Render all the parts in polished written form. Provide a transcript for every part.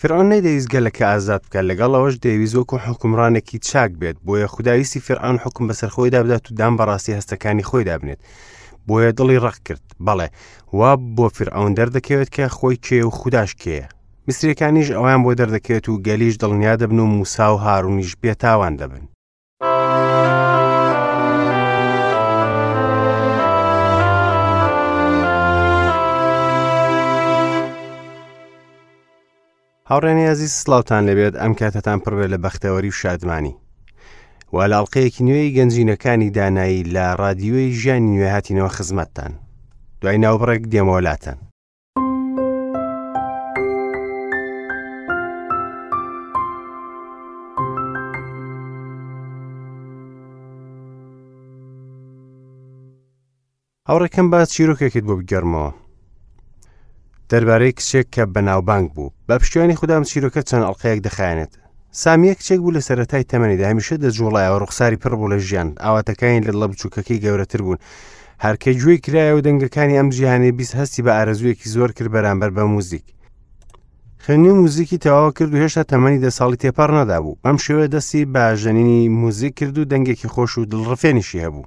فیرعەون نەیدەویست گەلەکە ئازاد بکات، لەگەڵ ئەوەش دەیویست وەکو حوکمڕانێکی چاک بێت، بۆیە خودا ویستی فیرعەون حوکم بەسەر خۆیدا بدات و دان بە ڕاستی هەستەکانی خۆیدا بنێت. بۆیە دڵی ڕەق کرد. بەڵێ، وا بۆ فیرعەون دەردەکەوێت کە خۆی کێیە و خوداش کێیە. میسریەکانیش ئەویان بۆ دەردەکەوێت و گەلیش دڵنیا دەبن و موسا و هارونیش بێتاوان دەبن. هاوڕێنی ئازیز سڵاوتان لەبێت ئەم کاتەتان پڕبێ لە بەختەوەری و شادمانی و لە ئەڵلقەیەکی نوێی گەنجینەکانی دانایی لە ڕادیۆی ژیانی نوێ هاتینەوە خزمەتتان دوای ناوبڕێک دێمەوە لاتان. هاوڕێکەم با چیرۆکێکت بۆ بگێڕمەوە دەربارەی کچێک کە بەناوبانگ بوو بە پشتیوانی خودام چیرۆکە چەند ئەڵلقەیەک دەخایەنێت سامیە کچێک بوو لە سەرەتای تەمەنیدا هەمیشە دەجوڵایەوە ڕوخساری پڕ بوو لە ژیان ئاواتەکانی لە دڵە بچووکەکەی گەورەتر بوون هەرکە گوێی کرایە و دەنگەکانی ئەم جیهانی 20 هەستی بە ئارەزوویەکی زۆر کرد بەرامبەر بە موزیک خوێندنی موزیکی تەواو کرد و هێشتا تەمەنی دە ساڵی تێپەڕ نەدابوو بەم شێوە دەستی بە ژەنینی موزیک کرد و دەنگێکی خۆش و دڵڕفێنیشی هەبوو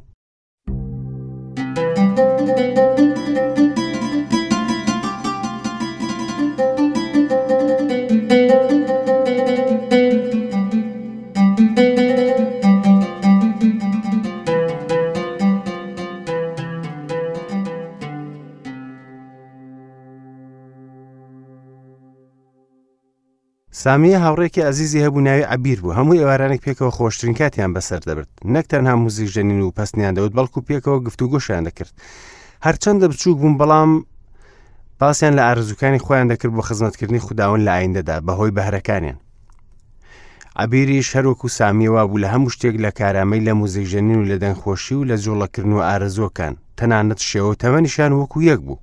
سامیە هاوڕێکی ئازیزی هەبوو ناوی عەبیر بوو، هەموو ئێوارانێک پێکەوە خۆشترین کاتیان بەسەر دەبرد، نەک تەنها موزیک ژەنین و پەستنیان دەوت بەڵکو پێکەوە گفتوگۆشیان دەکرد. هەرچەندە بچووک بوون بەڵام باسیان لە ئارەزووکانی خۆیان دەکرد بۆ خزمەتکردنی خوداوەند لە ئایندەدا بەهۆی بەهرەکانیان. عەبیریش هەروەکو سامیە وابوو لە هەموو شتێک لە کارامەی لە موزیکژەنین و لە دەنگخۆشی و لە جوڵەکردن و ئارەزووەکان، تەنانەت شێوە و تەمەنیشیان وەکو یەک بوو.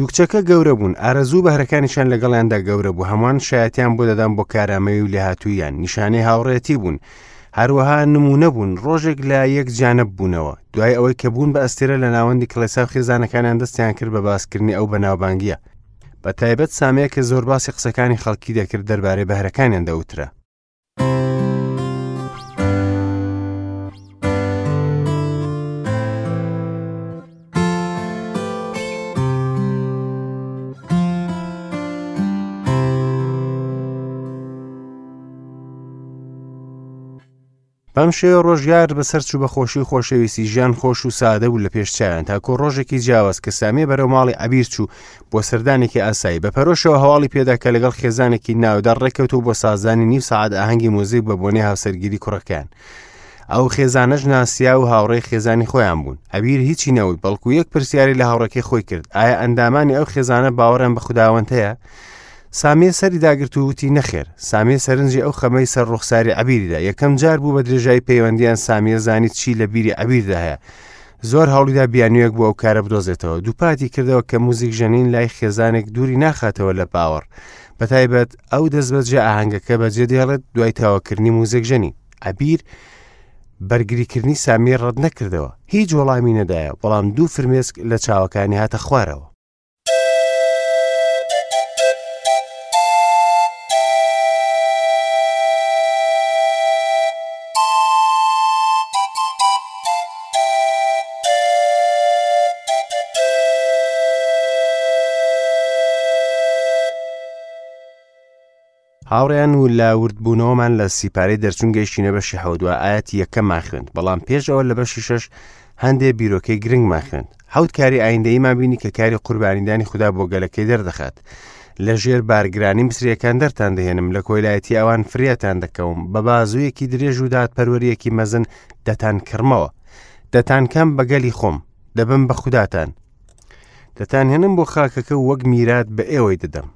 دوو کچەکە گەورە بوون، ئارەزوو و بەهرەکانیشیان لەگەڵیاندا گەورە بوو، هەمووان شایەتیان بۆ دەدان بۆ کارامەیی و لێهاتووییان، نیشانەی هاوڕێیەتی بوون، هەروەها نموونە بوون، ڕۆژێک لە یەک جیانەببوونەوە، دوای ئەوەی کە بوون بە ئەستێرە لە ناوەندی کڵێسا و خێزانەکانیان دەستیان کرد بە باسکردنی ئەو بەناوبانگییە، بە تایبەت سامیە کە زۆر باسی قسەکانی خەڵکی دەکرد دەربارەی بەهرەکانیان دەوترا. بەم شێوە ڕۆژگار بەسەر چوو بە خۆشی و خۆشەویستی ژیان خۆش و سادە بوو لە پێش چاویان تاکۆ ڕۆژێکی جیاواز کە سامیە بەرەو ماڵی عەبیر چوو بۆ سەردانێکی ئاسایی بە پەرۆشەوە هەواڵی پێدا کە لەگەڵ خێزانێکی ناودار ڕێککەوتوو بۆ سازدانی نیو سەعات ئاهەنگی موزیک بە بۆنەی هاوسەرگیری کوڕەکەیان ئەو خێزانەش ناسیا و هاوڕێی خێزانی خۆیان بوون عەبیر هیچی نەوت بەڵکو یەک پرسیاری لە هاوڕێکەی خۆی کرد ئایا ئەندامانی ئەو خێزانە باوەڕیان بە خوداوەند هەیە سامیە سەری داگرت و وتی نەخێر سامیە سەرنجی ئەو خەمەی سەر ڕوخساری عەبیریدا یەکەم جار بوو بە درێژای پەیوەندیان سامیە زانی چی لە بیری عەبیردا هەیە زۆر هەوڵیدا بیانوویەک بۆ ئەو کارە بدۆزێتەوە دووپاتی کردەوە کە موزیک ژەنین لای خێزانێک دووری ناخاتەوە لە باوەڕ بەتایبەت ئەو دەستبەجێ ئاهەنگەکە بەجێ دێڵێت دوای تەواوکردنی موزیک ژەنی عەبیر بەرگریکردنی سامیە ڕەت نەکردەوە هیچ وەڵامی نەدایە بەڵام دوو فرمێسک لە چاوەکانی هاتە خوارەوە هاوڕێیان و لە وردبوونەوەمان لە سیپارەی دەرچوون گەیشتینە بەشی حەوت و ئایەتی یەکەممان خوێند بەڵام پێش ئەوە لە بەشی شەش هەندێ بیرۆکەی گرنگمان خوێند حەوت کاری ئایندەییمان بینی کە کاری قوربانیدانی خودا بۆ گەلەکەی دەردەخات لە ژێر بارگرانی میسریەکان دەرتان دەهێنم لە کۆیلایەتی ئەوان فریاتان دەکەوم بە بازوویەکی درێژ و دادپەروەریەکی مەزن دەتان کڕمەوە دەتانکەم بە گەلی خۆم دەبم بە خوداتان دەتانهێنم بۆ خاکەکە وەک میرات بە ئێوەی دەدەم.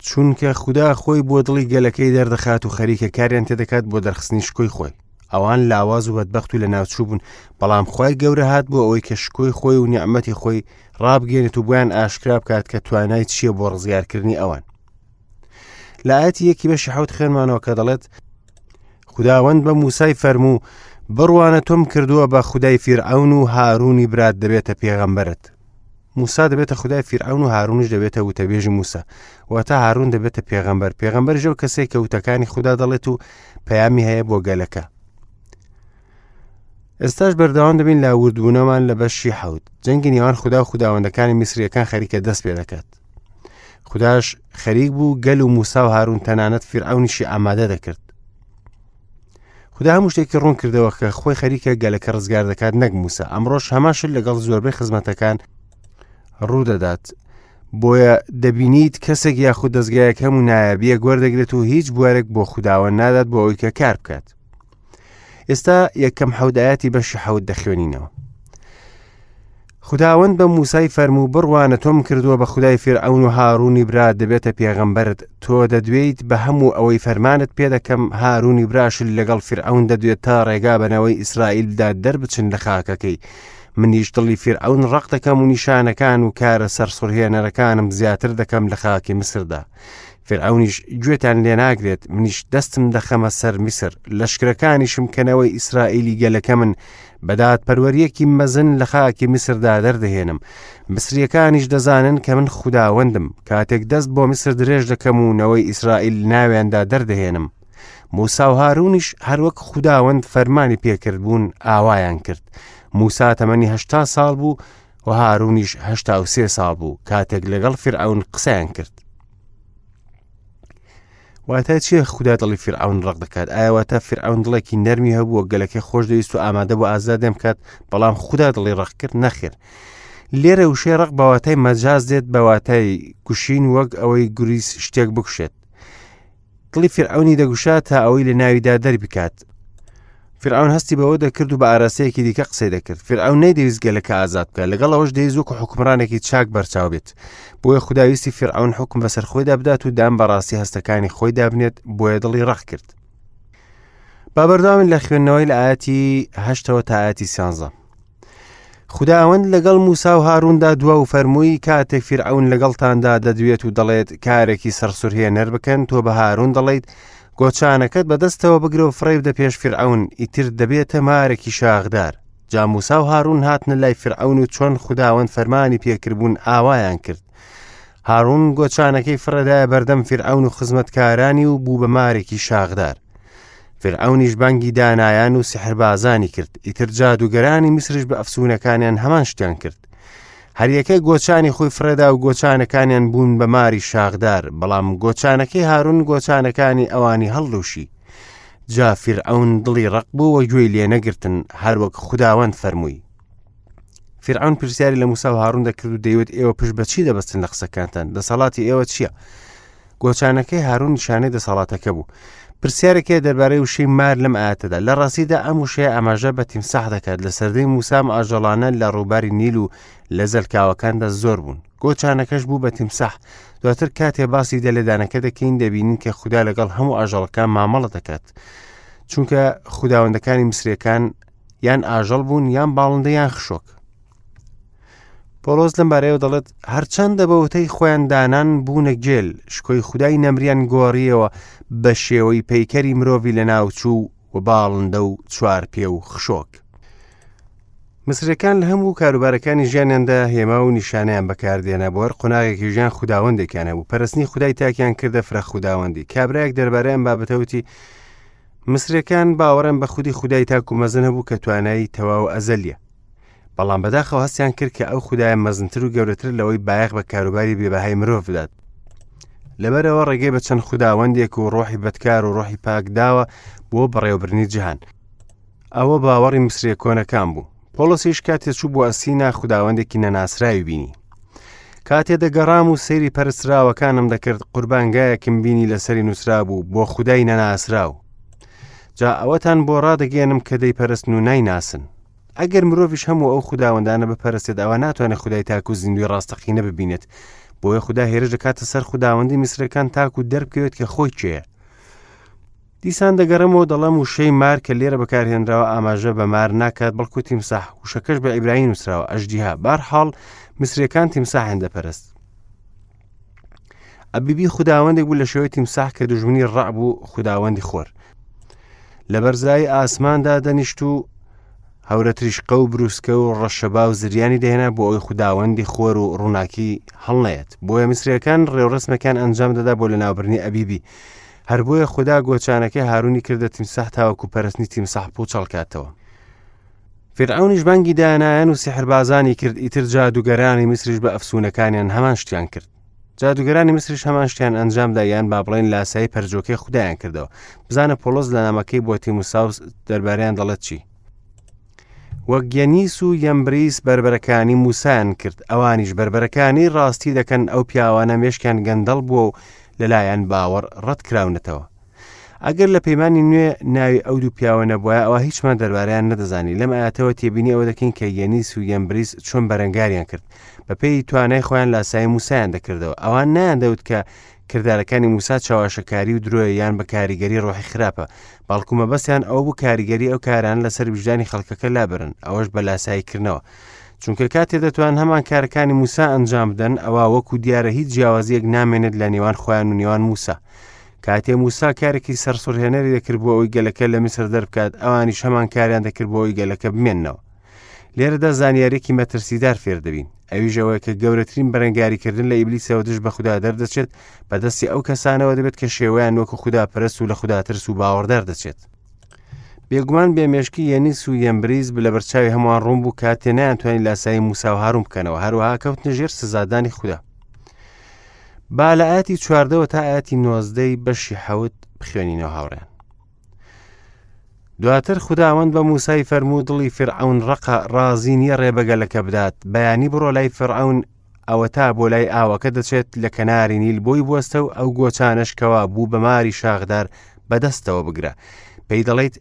چونکە خودا خۆی بۆ دڵی گەلەکەی دەردەخات و خەریکە کاریان تێدەکات بۆ دەرخستنی شکۆی خۆی. ئەوان لاواز و بەدبەخت و لەناوچوو بوون، بەڵام خوای گەورە هات بۆ ئەوەی کە شکۆی خۆی و نیعمەتی خۆی ڕابگەێنێت و بۆیان ئاشکرا بکات کە توانای چییە بۆ ڕزگارکردنی ئەوان. لە ئاەتی یەکی بەشی حوت خوێنمانەوە کە دەڵێت خداوەند بە موسای فەرموو بڕوانە تۆم کردووە بە خودای فیرعەون و هارونی برات دەبێتە پێغەمبەرت موسا دەبێتە خودای فیرعەون و هارونیش دەبێتە وتەبێژی موسا واتە هارون دەبێتە پێغەمبەر پێغەمبەر ژەو کەسێک کە وتەکانی خودا دەڵێت و پەیامی هەیە بۆ گەلەکە ئێستاش بەردەوام دەبین لە وردبوونەمان لە بەشی حەوت جەنگی نێوان خودا و خوداوەندەکانی میسریەکان خەریکە دەست پێ دەکات خودداش خەریک بوو گەل و موسا و هارون تەنانەت فیرعونیشی ئامادە دەکرد خودا هەموو شتێکی ڕوون کردەوە کە خۆی خەریکە گەلەکە ڕزگار دەکات نەک موسا ئەمڕۆش هەمان شت لەگەڵ زۆربەی خزمەتەکان ڕوودەدات بۆیە دەبینیت کەسێک یاخود دەستگایەک هەموو نایابیەک وەردەگرێت و هیچ بوارێک بۆ خودداوە نادات بۆ ئەوەی کە کار بکات ئێستا یەکەم حەودایەتی بەشی حەوت دەخوێنینەوە خوداوەند بە موسای فەرموو بڕوانە تۆم کردووە بە خودای فیرعەون و هارونی برات دەبێتە پێغەمبەرت تۆ دەدوێیت بە هەموو ئەوەی فەرمانت پێ دەکەم هارونی براشت لەگەڵ فیرعەون دەدوێت تا ڕێگا بە نەوەی ئیسرائیل بدات دەربچن لە خاکەکەی منیش دڵی فیرعەون ڕەق دەکەم و نیشانەکان و کارە سەرسوڕهێنەرەکانم زیاتر دەکەم لە خاکی میسردا فیرعەونیش گوێتان لێ ناگرێت منیش دەستم دەخەمە سەر میسر لەشکرەکانیشم کە نەوەی ئیسرائیلی گەلەکەمن بە دادپەروەرییەکی مەزن لە خاکی میسردا دەردەهێنم. میسرییەکانیش دەزانن کە من خوداوەندم، کاتێک دەست بۆ میسر درێژ دەکەم و نەوەی ئیسرائیل ناویاندا دەردەهێنم. موسا و هارونیش هەروەک خوداوەند فەرمانی پێکردبوون ئاوایان کرد. موسا تەمەنی هەشتا ساڵ بوو و هارونیش 83 ساڵ بوو کاتێک لەگەڵ فیرعەون قسەیان کرد. واتای چییە خودا دڵی فیرعەون ڕەق دەکات ئایا واتە فیرعەون دڵێکی نەرمی هەبووە گەلەکەی خۆش دەویست و ئامادە بۆ ئازادیان بکات بەڵام خودا دڵی ڕەق کرد نەخێر لێرە وشەی ڕق بە واتای مەجاز دێت بە واتای کوشین وەک ئەوەی گوریس شتێک بکوشێت دڵی فیرعەونی دەگوشا تا ئەوەی لە ناویدا دەربکات فیرعەون هەستی بەوە دەکرد و بە ئاراستەیەکی دیکە قسەی دەکرد فیرعەون نەیدەویست گەلەکە ئازاد بکات لەگەڵ ئەوەش دەیویست وەکو حوکمڕانێکی چاک بەرچاو بێت بۆیە خودا ویستی فیرعەون حوکم بەسەر خۆیدا بدات و دان بە ڕاستی هەستەکانی خۆیدا بنێت بۆیە دڵی ڕەق کرد با بەردەوامین لە خوێندنەوەی لە ئاەتی هەشتەوە تا ئاەتی سیانزە خوداوەند لەگەڵ موسا و هاروندا دوا و فەرمووی کاتێک فیرعەون لەگەڵتاندا دەدوێت و دەڵێت کارێکی سەرسورهێنەر بکەن تۆ بە هارون دەڵێیت گۆچانەکەت بەدەستەوە بگرە و فڕێ بدە پێش فیرعەون ئیتر دەبێتە مارێکی شاخدار جا موسا و هارون هاتنە لای فیرعەون و چۆن خوداوەند فەرمانی پێکردبوون ئاوایان کرد هارون گۆچانەکەی فڕێدایە بەردەم فیرعەون و خزمەتکارانی و بوو بە مارێکی شاخدار فیرعەونیش بانگی دانایان و سیحربازانی کرد ئیتر جادوگەرانی میسریش بە ئەفسونەکانیان هەمان شتیان کرد هەریەکە گۆچانی خۆی فڕێدا و گۆچانەکانیان بوون بە ماری شاخدار بەڵام گۆچانەکەی هارون گۆچانەکانی ئەوانی هەڵلوشی جا فیرعەون دڵی ڕق بوو و گوێی لێ نەگرتن هەروەک خوداوەند فەرمووی فیرعەون پرسیاری لە موسا و هارون دەکرد و دەیوت ئێوە پشت بە چی دەبەستن لە قسەکانتان دەسەڵاتی ئێوە چییە گۆچانەکەی هارون نیشانەی دەسەڵاتەکە بوو پرسیارێک هەیە دەربارەی وشەی مار لەم ئاەتەدا لە ڕاستیدا ئەم وشەیە ئاماژە بە تیمساح دەکات لە سەردەی موسام ئاژەڵانە لە ڕووباری نیل و لە زەلکاوەکاندا زۆر بوون گۆچانەکەش بوو بە تیمساح دواتر کاتێ باسی دەلێدانەکە دەکەین دەبینین کە خودا لەگەڵ هەموو ئاژەڵەکان مامەڵە دەکات چونکە خوداوەندەکانی میسرەکان یان ئاژەڵ بوون یان باڵندە یان خشۆک پۆڵۆس لەم بارەیەوە دەڵێت هەرچەندە بە وتەی خۆیان دانان بوونە گێل شکۆی خودای نەمریان گۆڕیەوە بە شێوەی پەیکەری مرۆڤی لەناوچوو و باڵندە و چوارپێ و خشۆک. مسرەکان لە هەموو کاروبارەکانی ژیانیاندا هێما و نیشانەیان بەکاردێنا بۆ هەر قۆناغێکی ژیان خوداوەندێکیان هەبوو پەرستنی خودای تاکیان کردە فرە خوداوەندی کابرایەک دەربارەی ئەم بابەتە وتی مسرەکان باوەڕیان بە خودی خودای تاک و مەزن هەبوو کە توانایی تەواو ئەزەلیە بەڵام بەداخەوە هەستیان کرد کە ئەو خودایە مەزنتر و گەورەتر لەوەی بایەخ بە کاروباری بێبەهای مرۆڤ بدات لەبەرەوە ڕێگەی بە چەند خوداوەندێک و ڕۆحی بەدکار و ڕۆحی پاک داوە بۆ بەڕێوەبردنی جیهان ئەوە باوەڕی میسریە کۆنەکان بوو پۆڵسیش کاتێ چوو بۆ ئەسینا خوداوەندێکی نەناسراوی بینی کاتێ دەگەڕام و سەیری پەرستراوەکانم دەکرد قوربانگایەکم بینی لەسەری نووسرابوو بۆ خودای نەناسراو جا ئەوەتان بۆ ڕادەگەێنم کە دەیپەرستن و نایناسن ئەگەر مرۆڤیش هەموو ئەو خوداوەندانە بپەرستێت ئەوە ناتوانێت خودای تاک و زیندوی ڕاستەقینە ببینێت. بۆیە خودا هێرش دەکاتە سەر خوداوەندی میسرەکان تاکو دەربکەوێت کە خۆی کێیە. دیسان دەگەڕێمەوە دەڵێم وشەی مار کە لێرە بەکارهێنراوە ئاماژە بە مار ناکات بەڵکو تیمساح، وشەکەش بە عیبرانی نووسراوە ئەژدیها. بارحاڵ میسرەکان تیمساحیان دەپەرست. ئەبیبی خوداوەندێک بوو لە شێوەی تیمساح کە دوژمنی ڕەع بوو خوداوەندی خۆر. لە بەرزایی ئاسماندا دەنیشت و هەورە تریشقە و بروسکە و ڕەشەبا و زریانی دەهێنا بۆ ئەوەی خوداوەندی خۆر و ڕووناکی هەڵنەیەت. بۆیە میسریەکان ڕێوڕەسمەکان ئەنجام دەدا بۆ لەناوبردنی ئەبیبی. هەر بۆیە خودا گۆچانەکەی هارونی کردە تیمساح تاوەکو پەرستنی تیمساح پوچەڵ کاتەوە. فیرعەونیش بانگی دانایان و سیحربازانی کرد، ئیتر جادوگەرانی میسریش بە ئەفسونەکانیان هەمان شتیان کرد. جادوگەرانی میسریش هەمان شتیان ئەنجامدا یان با بڵێن لاسایی پەرجۆکەی خودایان کردەوە. بزانە پۆڵۆس لە نامەکەی بۆ تیموساوس دەربارەیان دەڵێت چی؟ وەک یەنیس و یەمبریس بەربەرەکانی موسایان کرد، ئەوانیش بەربەرەکانی ڕاستی دەکەن، ئەو پیاوانە مێشکیان گەندەڵ بووە و لەلایەن باوەڕ ڕەت کراونەتەوە. ئەگەر لە پەیمانی نوێ ناوی ئەو دوو پیاوە نەبوایە ئەوا هیچمان دەربارەیان نەدەزانی. لەم ئاەتەوە تێبینی ئەوە دەکەین کە یەنیس و یەمبریس چۆن بەرەنگاریان کرد. بەپێی توانای خۆیان لاسایی موسایان دەکردەوە. ئەوان نەیاندەوت کە کردارەکانی موسا چەواشەکاری و درۆیە یان بە کاریگەری ڕۆحی خراپە، بەڵکو مەبەستیان ئەوە بوو کاریگەری ئەو کارانە لەسەر ویژدانی خەڵکەکە لابەرن، ئەوەش بە لاساییکردنەوە. چونکە کاتێ دەتوان هەمان کارەکانی موسا ئەنجام بدەن، ئەوا وەکو دیارە هیچ جیاوازییەک نامێنێت لە نێوان خۆیان و نێوان موسا. کاتێ موسا کارێکی سەرسوڕهێنەری دەکرد بۆ ئەوەی گەلەکە لە میسر دەربکات، ئەوانیش هەمان کاریان دەکرد بۆ ئەوەی گەلەکە بمێننەوە. لێرەدا زانیاریەکی مەترسیدار فێر دەبین ئەویش ئەوەیە کە گەورەترین بەرەنگاریکردن لە ئیبلیسەوە دژ بە خودا دەردەچێت بەدەستی ئەو کەسانەوە دەبێت کە شێوەیان وەکو خودا پەرست و لە خودا ترس و باوەڕدار دەچێت. بێگومان بێمێشکی یەنیس و یەمبریز لە بەرچاوی هەمووان ڕوون بوو کاتێ نەیانتوانی لاسایی موسا و هارون بکەنەوە، هەروەها کەوتنە ژێر سزادانی خودا. با لە ئاەتی چواردەوە تا ئاەتی نۆزدەی بەشی حەوت بخوێنینەوە هاوڕێن. دواتر خوداوەند بە موسای فەرموو دڵی فیرعەون ڕەقە، ڕازی نییە ڕێ بە گەلەکە بدات، بەیانی بڕۆ لای فیرعەون، ئەوەتا بۆ لای ئاوەکە دەچێت لە کەناری نیل بۆی بوەستە و ئەو گۆچانەش کەوا بوو بە ماری شاخدار بەدەستەوە بگرە. پێی دەڵێیت،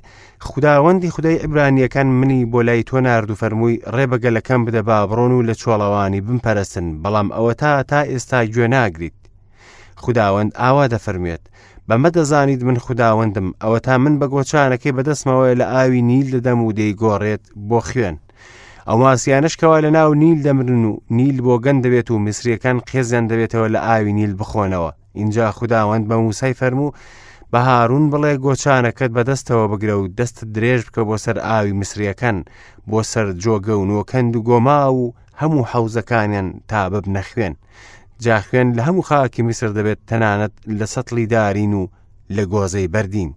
خوداوەندی خودای عیبرانییەکان منی بۆ لای تۆ نارد و فەرمووی، ڕێ بە گەلەکەم بدە با بڕۆن و لە چۆڵەوانی بمپەرستن، بەڵام ئەوەتا تا ئێستا گوێ ناگریت. خوداوەند ئاوا دەفەرموێت، بەمە دەزانیت من خوداوەندم، ئەوەتا من بە گۆچانەکەی بەدەستمەوەیە لە ئاوی نیل دەدەم و دەیگۆڕێت بۆ خوێن. ئەو ماسیانەش کەوا لە ناو نیل دەمرن و نیل بۆگەن دەبێت و میسریەکان قێزیان دەبێتەوە لە ئاوی نیل بخۆنەوە. ئینجا خوداوەند بە موسای فەرموو، بە هارون بڵێ گۆچانەکەت بەدەستەوە بگرە و دەستت درێژ بکە بۆ سەر ئاوی میسریەکان، بۆ سەر جۆگە و نۆکەند و گۆماو و هەموو حەوزەکانیان تا ببنە خوێن. جا خوێن لە هەموو خاکی میسر دەبێت تەنانەت لە سەتڵی دارین و لە گۆزەی بەردین.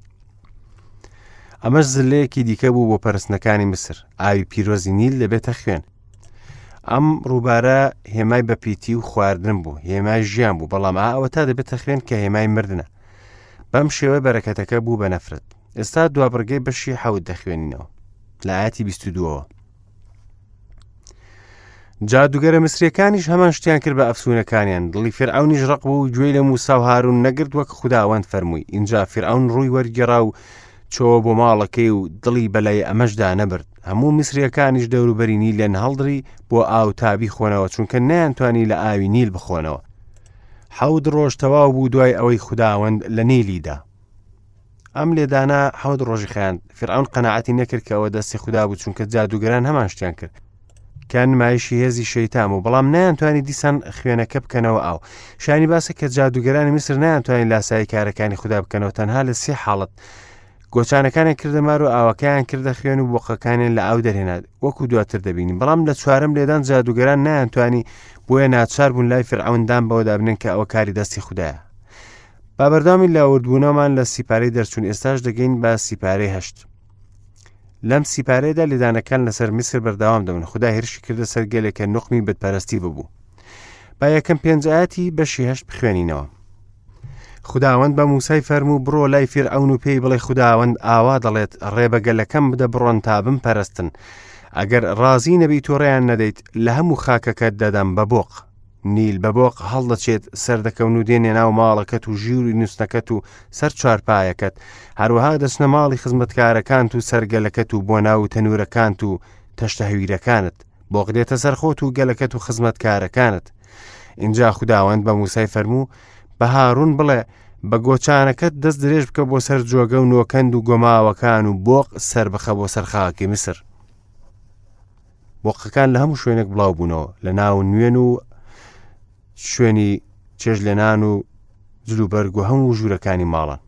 ئەمەش زلەیەکی دیکە بوو بۆ پەرستنەکانی میسر، ئاوی پیرۆزی نیل دەبێتە خوێن. ئەم ڕووبارە هێمای بەپیتی و خواردن بوو، هێمای ژیان بوو، بەڵام ئا ئەوەتا دەبێتە خوێن کە هێمای مردنە. بەم شێوە بەرەکەتەکە بوو بە نەفرەت. ئێستا دوابڕگەی بەشی حەوت دەخوێنینەوە لە ئاەتی 22ەوە. جادوگەرە میسریەکانیش هەمان شتیان کرد بە ئەفسونەکانیان دڵی فیرعەونیش ڕق بوو و گوێی لە موسا و هارون نەگرت وەک خوداوەند فەرمووی ئینجا فیرعەون ڕووی وەرگێڕا و چۆوە بۆ ماڵەکەی و دڵی بەلای ئەمەشدا نەبرد هەموو میسریەکانیش دەوروبەری نیلیان هەڵدڕی بۆ ئاو تا بیخۆنەوە چونکە نەیانتوانی لە ئاوی نیل بخۆنەوە حەوت ڕۆژ تەواو بوو دوای ئەوەی خوداوەند لە نیلی دا. ئەم لێدانە حەوت ڕۆژی خایاند. فیرعەون قەناعەتی نەکرد کە ئەوە دەستی خودا بوو چونکە جادووگەران هەمان شتیان کرد کە نمایشی هێزی شەیتان بوو بەڵام نەیانتوانی دیسان خوێنەکە بکەنەوە ئاو شانی باسە کە جادووگەرانی میسر نەیانتوانی لاسایی کارەکانی خودا بکەنەوە تەنها لە سێ حاڵەت گۆچانەکانیان کردە مار و ئاوەکەیان کردە خوێن و بۆقەکانیان لە ئاو دەرهێنا وەکو دواتر دەبینین بەڵام لە چوارەم لێدان جادوگەران نەیانتوانی بۆیە ناچار بوون لای فرعون دان بەوەدا بنێن کە ئەوە کاری دەستی خودایە با بەردەوامی لە وردبوونەوەمان لە سیپارەی دەرچوون ئێستاش دەگەین بە سیپارەی هەشت لەم سیپارەیەدا لێدانەکان لەسەر میسر بەردەوام دەبن خودا هێرشی کردە سەر گەلێک کە نوقمی بتپەرستی ببوو با یەکەم پێنج ئاەتی بەشی هەشت بخوێنینەوە خداوەند بە موسای فەرموو بڕۆ لای فیرعەون و پێی بڵێ خداوەند ئاوا دەڵێت ڕێ بە گەلەکەم بدە بڕۆن تا بمپەرستن ئەگەر ڕازی نەبیت و ڕێیان نەدەیت لە هەموو خاکەکەت دەدەم بە بۆق نیل بە بۆق هەڵدەچێت، سەردەکەون و دێنە ناو ماڵەکەت و ژووری نووستنەکەت و سەر چوارپایەکەت، هەروەها دەچنە ماڵی خزمەتکارەکانت و سەر گەلەکەت و بۆ ناو تەنوورەکانت و تەشتە هەویرەکانت. بۆق دێتە سەر خۆت و گەلەکەت و خزمەتکارەکانت. ئینجا خوداوەند بە موسای فەرموو، بە هارون بڵێ، بە گۆچانەکەت دەست درێژ بکە بۆ سەر جۆگە و نۆکەند و گۆماوەکان و بۆق سەربخە بۆ سەر خاکی میسر. بۆقەکان لە هەموو شوێنێک بڵاو بوونەوە، لە ناو نوێن و شوێنی چێژلێنان و جلوبەرگ و هەموو ژوورەکانی ماڵان.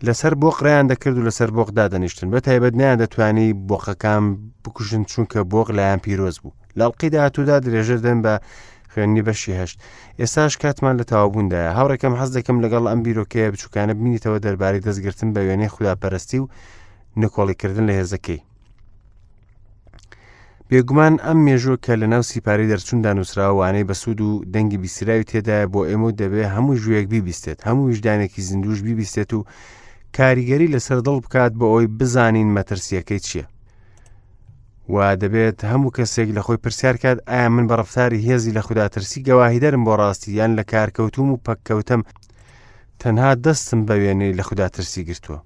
لەسەر بۆق ڕێیان دەکرد و لەسەر بۆق دادەنیشتن بە تایبەت نیان دەتوانی بۆقەکان بکوژن چونکە بۆق لایەن پیرۆز بوو لەڵقی داهاتوودا درێژە دەن بە خوێندنی بەشی هەشت ئێستاش کاتمان لە تەواوبووندایە هاوڕێکەم حەز دەکەم لەگەڵ ئەم بیرۆکەیە بچووکانە بمینیتەوە دەربارەی دەستگرتن بە وێنەی خوداپەرستی و نکۆڵیکردن لە هێزەکەی بێگومان ئەم مێژووە کە لە ناو سیپارەی دەرچووندا نووسراوە وانەی بەسوود و دەنگی بیستراوی تێدایە بۆ ئێمە و دەبێ هەموو ژوویەک بیبیستێت هەموو ویژدانێکی زیندوش بیبیستێت و کاریگەری لەسەر دڵ بکات بۆ ئەوەی بزانین مەترسیەکەی چییە و دەبێت هەموو کەسێک لە خۆی پرسیار کات ئایا من بە ڕفتاری هێزی لە خوداترسی گەواهیدەرم بۆ ڕاستی یان لە کارکەوتوم و پەککەوتم تەنها دەستم بە وێنەی لە خوداترسی گرتووە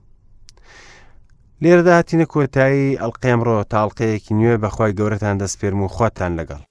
لێرەدا هاتینە کۆتایی ئەڵقەی ئەمڕۆ تا ئەڵقەیەکی نوێ بەخوای گەورەتان دەسپێرم و خواتان لەگەڵ.